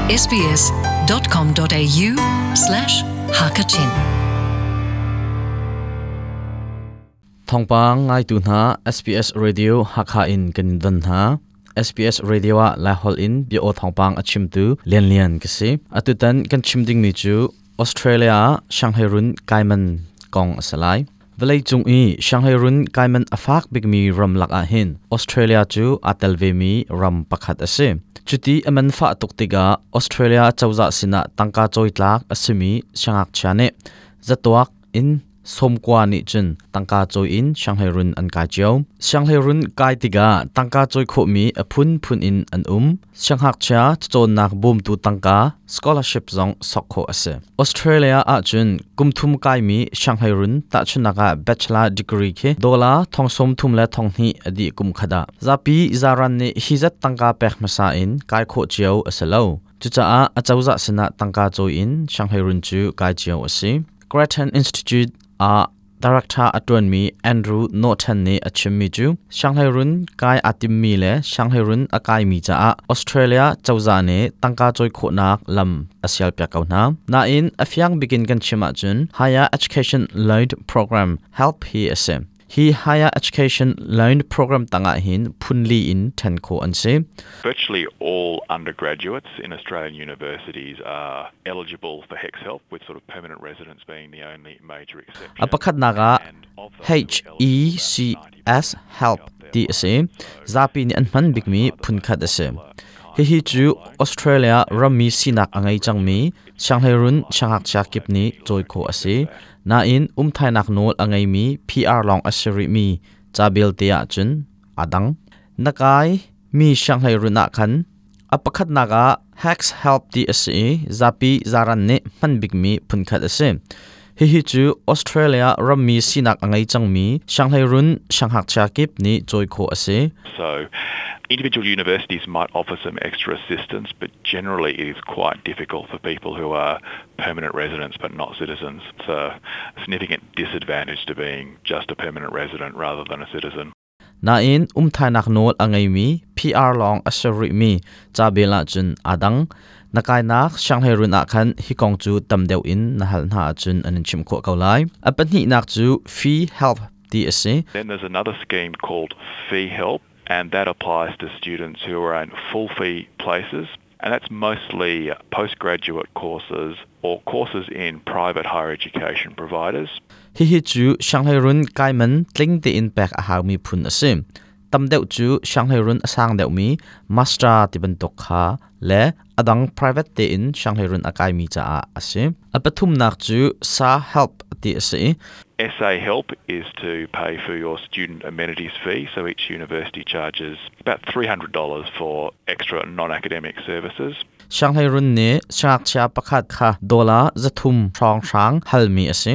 sbs.com.au slash hakachin Thawngpang ngaitu hna SBS Radio Hakha in kan in don hna. SBS Radio ah Laiholh in bia aw thawngpang a chimtu Lian Lian ka si. Atutan kan chim dingmi cu Australia ah Shanghai run kaiman kong a si lai. Vawleicung i Shanghai run kaiman a fak bikmi ram lak ah hin Australia cu aa tel vemi ram pakhat a si. Cuti a man fah tuk tikah Australia cozah sinah tangka cawi tlak a simi siangngakchia nih zatuak in sawmkua nih cun tangka cawi in Shanghai run an kai cio. Shanghai run kai tikah tangka cawi khawhmi a phunphun in an um. Siangngakchia cacawnnak bawmtu tangka scholarship zong sok khawh a si. Australia ahcun kum thum kaimi Shanghai run tahchunhnak ah bachelor degree khi dollar thong sawm thum le thong hnih a dih kum khat ah. Zapi zaran nih hi zat tangka pek hmasa in kai khawh cio a si lo. Cucaah a cozah sinah tangka cawi in Shanghai run cu kai cio a si. Grattan Institute ah Director a ṭuanmi Andrew Norton nih a chimmi cu Shanghai run kai aa timmi le Shanghai run a kaimi caah Australia cozah nih tangka cawi khawhnak lam a sialpiak ko hna. Nain a fiang bikin kan chim ahcun Higher Education Loan Program HELP hi a si. Hi Higher Education Loan Program tangah hin phunli in ṭhen khawh an si. Virtually all undergraduates in Australian universities are eligible for HECS help with sort of permanent residence being the only A pakhatnak ah HECS help ti a si. Zapi nih an hman bikmi phunkhat a si. Hihi cu Australia rammi sinak a ngei cangmi sianghleirun siangngakchia kip nih cawi khawh a si. Nain umthainak nawl a ngeimi PR lawng a si rihmi ca belte ahcun aa dang. Na kai mi sianghleirun ah khan A pakhatnak ah HECS help ti a si i zapi zaran nih hman bikmi phunkhat a si. Hihi cu Australia rammi sinak a ngei cangmi sianghleirun siangngakchia kip nih cawi khawh a si. So individual universities might offer some extra assistance, but generally it is quite difficult for people who are permanent residents but not citizens. It's a significant disadvantage to being just a permanent resident rather than a citizen. Nain umthainak nawl a ngeimi PR lawng a si rihmi ca bel ahcun aa dang. Na kainak sianghleirun ah khan hi kong cu tam deuh in na hal hna ahcun an in chimh khawh ko lai. A pahnihnak cu fee help ti a si. Then there's another scheme called Fee Help and that applies to students who are in full fee places and that's mostly postgraduate courses or courses in private higher education providers. Hihi cu sianghleirun kaiman tling tein pek a haumi phun a si. Tam deuh cu sianghleirun a sang deuhmi master ti bantuk kha le a dang private tein sianghleirun a kaimi caah a si. A pathumnak cu SA help ti a si. SA Help is to pay for your student amenities fee, so each university charges about $300 for extra non-academic services. Sianghleirun nih siangngakchia pakhat kha dollar 300 hrawnghrang halmi a si.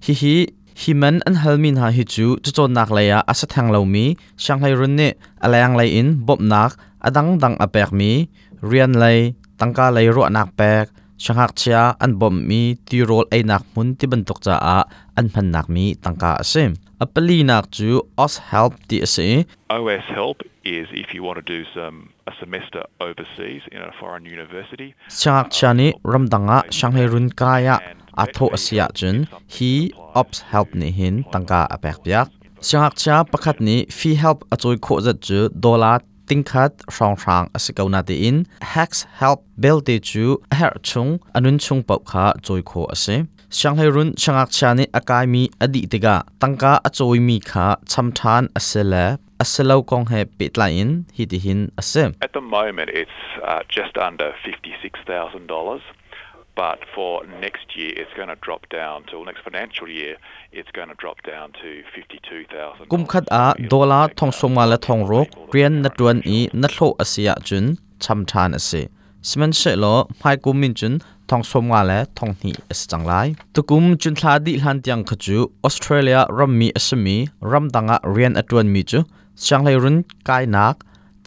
Hihi hi man an halmi hna hi cu cacawnnak lei ah a si theng lomi sianghleirun nih a lenglei in bawmhnak a dangdang a pekmi rian lei, tangka lei ruahnak pek, siangngakchia an bawmhmi tirawl einak hmun ti bantuk caah an hmannak mi tangka a si. A palinak cu OzHelp ti a si. OS Help is if you want to do some a semester overseas in a foreign university. Siangngakchia nih ramdang ah sianghleirun kai ah aa thawh a si ahcun hi OzHelp nih hin tangka a pek piak. Siangngakchia pakhat nih fee help a cawi khawh zat cu dollar tingkhat hrawnghrang a si ko natein HECS help belte cu a herh chung a nun chung paoh kha cawi khawh a si. Sianghleirun siangngakchia nih a kaimi a dih tikah tangka a cawimi kha cham ṭhan a si le a si lo kong he pehtlai in hitihin a si. At the moment it's just under $56,000 but for next year it's going to drop down to next financial year it's going to drop down to $52,000. Kum khat ah dollar thong sawmnga le thong ruk rian na ṭuan i na hlawh a si ahcun cham ṭhan a si. Sihmanhsehlaw hmaikum in cun thong sawmnga le thong hnih a si cang lai. Tukum cunthla dih hlan tiang kha cu Australia rammi a simi ramdang ah rian a ṭuanmi cu sianghleirun kainak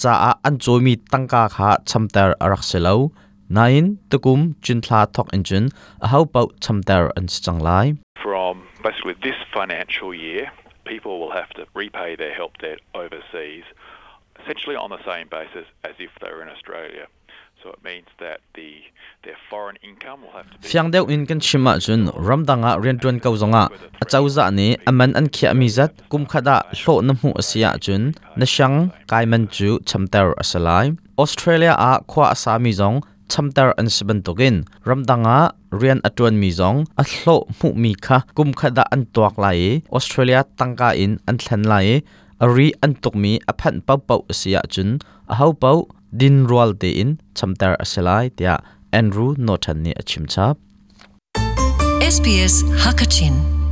caah an cawimi tangka kha chamter a rak si lo. Nain tukum cunthla thawk in cun ahopaoh chamter an si cang lai. From basically this financial year, people will have to repay their help debt overseas essentially on the same basis as if they were in Australia. So it means that the their foreign income will have to be Fiang deuh in kan chim ahcun ramdang ah rianṭuan ko zongah acozah nih a man an khiahmi zat kum khat ah hlawh na hmuh a si ahcun na siang kai man cu chamter a si lai. Australia ah khua a sami zong chamter an si bantukin ramdang ah rian a ṭuanmi zong a hlawh hmuhmi kha kum khat ah an tuak lai i Australia tangka in an thlen lai i a ri an tukmi a phanh paohpaoh a si ahcun ahopaoh din rual tein chamter a si lai tiah Andrew Norton nih a chim chap. SBS Hakachin.